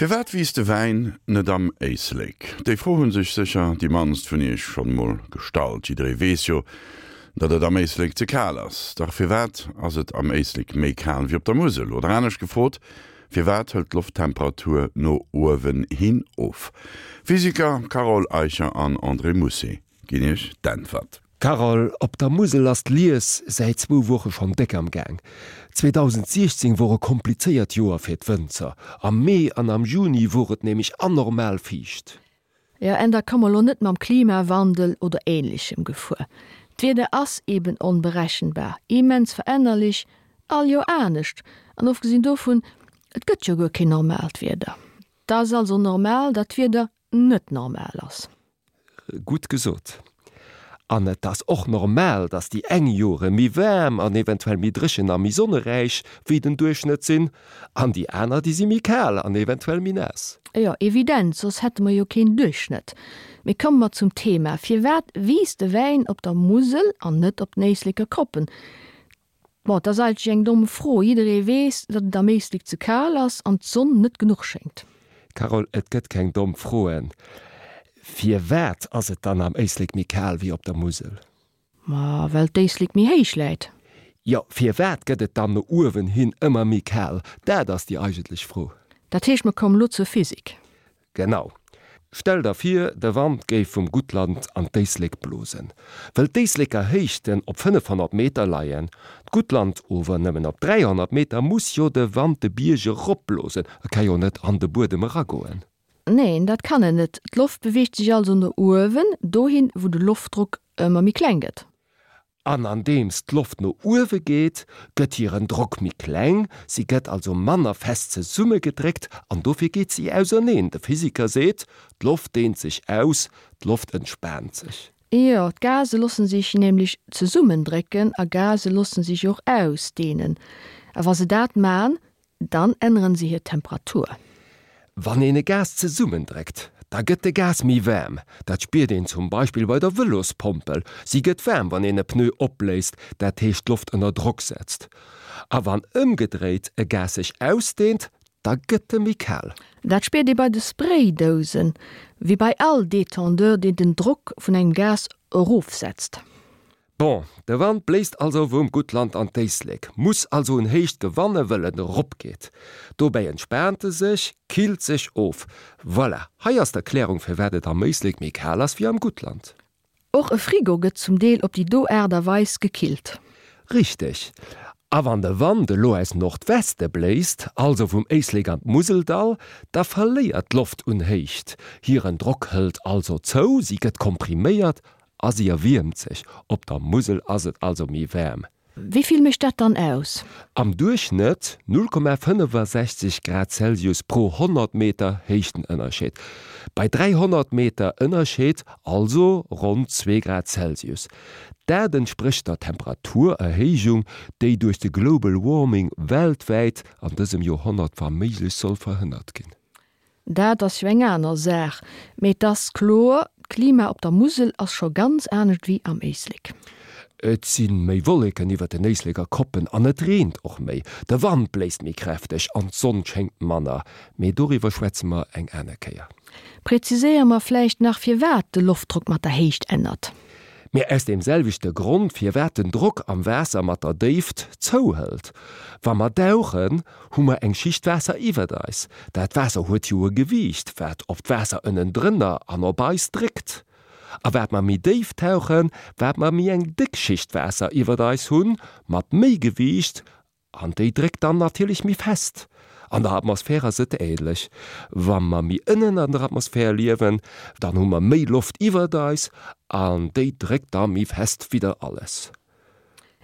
Firwat wiisst de Wäin net am Éislek? Déi Fro hu sech sécher déi mannst vun iech schonn emol gestallt. Jidderee weess jo, datt et am Éislek ze kal ass. Dach firwat ass et am Éislek méi kal wéi op der Musel? Oder anescht gefrot, Firwat hëlt d'Lofttemperatur no uewen hin of? Physiker Carole Eicher an André Mousset ginn iech d'Äntwert. Carole, op der Musel ass d'Lies säit zwou Woche schonn déck am Gaang. 2016 wor e komplizéiert Joer fir d'Wënzer. Am Mee an am Juni wor et nämlech anormal fiicht. Jo, en da komm mer lo net mam Klimawandel oder ähnlechem gefuer. D'Wieder ass eben onberechenbar, immens verännerlech, all Joer anescht. An ofgesinn dovun, et gëtt jo guer keen normaalt Wieder. 't ass also normal, datt d'Wieder net normal ass. Gutt gesot. An et ass och normal, dass déi eng Jore méi waarm an eventuell méi dréchen a méi sonneräich wéi den Duerchschnëtt sinn, an déi aner, déi si méi kal an eventuell méi naass. Jo, evident, soss hätte mer jo keen Duerchschnëtt. Mee komme mer zum Thema, Firwat wiisst de Wäin op der Musel an net op den Éisleker Koppen? Bon, et ass eigentlech eng domm Fro. Jidderee weess, datt et am Éislek ze kal ass an d'Sonn net genuch schéngt. Carole, et gëtt keng domm Froen. Firwat ass et dann am Éislek méi kal wéi op der Musel? Ma well d'Éislek méi héich läit. Jo, firwat gëtt et dann no uewen hin ëmmer méi kal? Dat ass déi eigentlech Fro. Dat heescht, mer kommen elo zur Physik. Genau. Stell der vir, de Wand géif vum Guttland an d'Éislek blosen. Wëll d'Éisleker Héichten op 500 Meter leien, d'Guttland ower nëmmen op 300 Meter, muss jo de Wand de Bierg eropblosen, e ka jo net an de Buedem eragoen. Neen, dat kann en net. D'Loft beweegt sech also no uewen, dohin, wou de Loftdrock ëmmer méi kleng gëtt. An andeems d'Loft no uewe geet, gëtt hiren Drock méi kleng, si gëtt also manner fest zesummegedréckt an dofir geet si auserneen. De Physiker seet, d'Loft deent sech aus, d'Loft entspaant sech. Jo, d'Gase loosse sech nämlech zesummendrécken a Gase loosse sech och ausdeenen. A wa se dat man, Dann änneren se hir Temperatur. Wann een e Gas zesummendréckt, da gëtt de Gas méi waarm. Dat spiert een zum Beispill bei der Vëlospompel, si gëtt waarm, wann een e Pneu opbléist, dat heescht d'Loft ënner Drock setzt. A wann ëmgedréit e Gas sech ausdeent, da gëtt e méi kal. Dat spiert ee bei de Spraydousen, wéi bei all Detendeur, deen den Drock vun engem Gas erofsetzt. Bon, de Wand bléist also vum Guttland an d'Éislek, muss also un Héicht gewanne wëll en erop geet. Dobäi entspaant e sech, killt sech of. Voilà, hei ass d'Erklärung firwat et am Éislek méi kal ass wéi am Guttland. Och e Frigo gëtt zum Deel op déi do Aart a Weis gekillt. Richteg. A wann de Wand elo aus Nordweste bléist, also vum Éislek an d'Museldall, da verléiert d'Loft un Héicht. Hiren Drock hëlt also zou, si gëtt kompriméiert A si erwiermt sech. Op der Musel ass et also méi waarm. Wéi vill mécht dat dann aus? Am Duerchschnëtt 0,65 Grad Celsius pro 100 Meter Héichtenënnerscheed. Bei 300 Meter Ënnerscheed also ronn zwee Grad Celsius. Dat entsprécht der Temperaturerhéijung, déi duerch de Global Warming weltwäit an dësem Joerhonnert wa méiglech soll verhënnert ginn. Dat ass jo eng aner Saach, mee et ass kloer, d'Klima op der Musel ass scho ganz anescht wéi am Éislek. Et si méi Wolleken iwwer den Éisleker Koppen an et reent och méi. De Wand bléist méi kräfteg an d'Sonn schéngt manner. Mee doriwwer schwätze mer eng aner Kéier. Präziséiere mer vläicht nach, firwat de Loftdrock mat der Héicht ännert. Mee aus deem selwechte Grond, firwat den Drock am Waasser mat der Déift zouhëlt. Wa mer dauchen, hu mer eng Schicht Waasser iwwert eis. Dat Waasser huet jo e Gewiicht, wat op d'Waasser ënnendrënner an op eis dréckt. A wat mer méi déif tauchen, wat mer méi eng déck Schicht Waasser iwwert eis hunn, mat méi Gewiicht, An déi dréckt dann natierlech méi fest. An der Atmosphär ass et ähnlech. Wa mer méi ënnen an der Atmosphär liewen, dann hu mer méi Loft iwwert eis an déi dréckt da méi fest widder alles.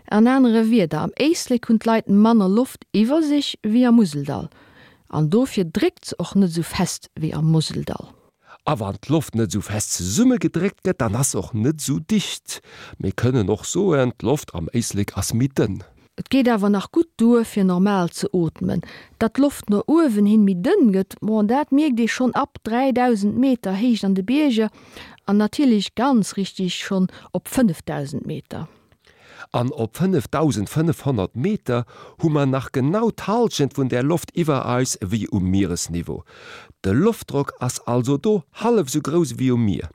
An anere Wierder, am Éislek hunn d'Leit manner Loft iwwer sech wéi am Museldall an dofir dréckt se och net esou fest wéi am Museldall. A wann d'Loft net esou fest zesummegedréckt gëtt, dann ass se och net esou dicht. Mir kënnen och soen, d'Loft am Éislek ass méi dënn. Et geet awer nach gutt duer, fir normal ze ootmen. Datt d'Loft no uewen hin méi dënn gëtt, bon, dat mierkt ee schonn ab 3.000 Meter Héicht an de Bierger an natierlech ganz richtig schonn op 5.000 Meter. An op 5.500 Meter hu mer nach genau d'Hallschent vun där Loft iwwer eis ewéi um Mieresniveau. De Loftdrock ass also do hallef esou grouss ewéi um Mier.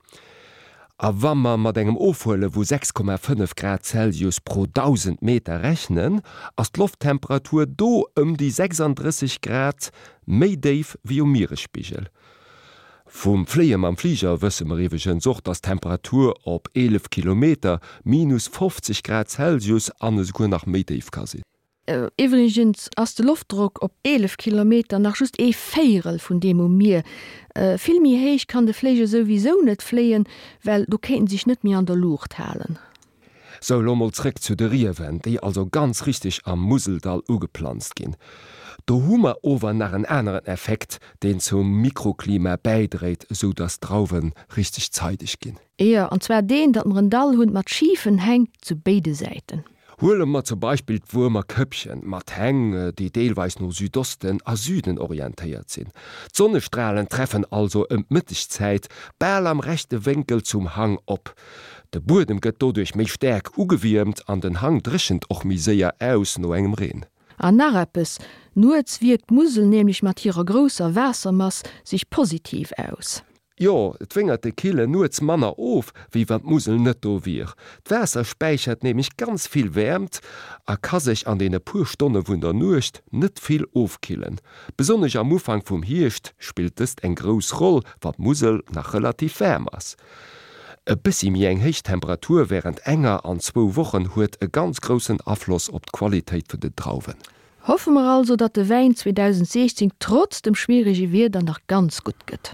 A wa mer mat engem Ofhuele vu 6,5 Grad Celsius pro 1.000 Meter rechnen, ass d'Lofttemperatur do ëm déi 36 Grad méi déif wéi um Mieresspigel. Vum Fléie mam Fliger wësse mer iwweregens och, dass d'Temperatur op 11 Kilometer minus 50 Grad Celsius an esouguer nach méi déif ka sinn. Iwwregens ass de Loftdrock op 11 Kilometer nach just ee Véierel vun deem um Mier. Vill méi héich kann de Fléiger souwisou net fléien, well do kéint en sech net méi an der Luucht halen. Sou, elo mol zréck zu de Riewen, déi also ganz richteg am Museldall ugeplanzt ginn. Do hu mer ower nach en aneren Effekt, deen zum Mikroklima bäidréit, esou dass d'Drauwe richteg zeideg ginn. Jo, an zwar deen, datt mer en Dall hunn mat schifen Häng zu béide Säiten. Huele mer zum Beispill d'Wuermer Këppchen mat Häng, déi deelweis no Südosten a Süden orientéiert sinn. D'Sonnestralen treffen also ëm d'Mëttegzäit bal am rechte Wénkel zum Hang op. De Buedem gëtt doduerch méi staark ugewiermt an den Hang dréchent och méi séier aus no engem Reen. An nach eppes, Nuets wierkt d'Musel nämlech mat hirer grousser Waassermass sech positiv aus. Jo, d'Wéngerte kille nuets manner of, wéi wann d'Musel net do wier. D'Waasser späichert nämlech ganz vill Wäermt a ka sech an deene puer Stonne vun der Nuecht net vill ofkillen. Besonnesch am Ufank vum Hierscht spillt dëst eng grouss Roll, wann d'Musel nach relativ waarm ass. E bëssi méi eng héich Temperatur wärend enger an zwou Wochen huet e ganz groussen Afloss op d'Qualitéit vun den Drauwen. Hoffe mer also, datt de Wäin 2016 trotz dem schwierege Wieder nach ganz gutt gëtt.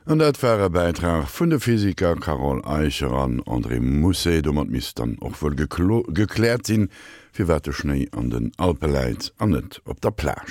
An dat war e Bäitrag vun de Physiker Carole Eicher an André Mousset. Domat misst dann och wuel gekläert sinn, firwat de Schnéi an den Alpe läit an net op der Plage.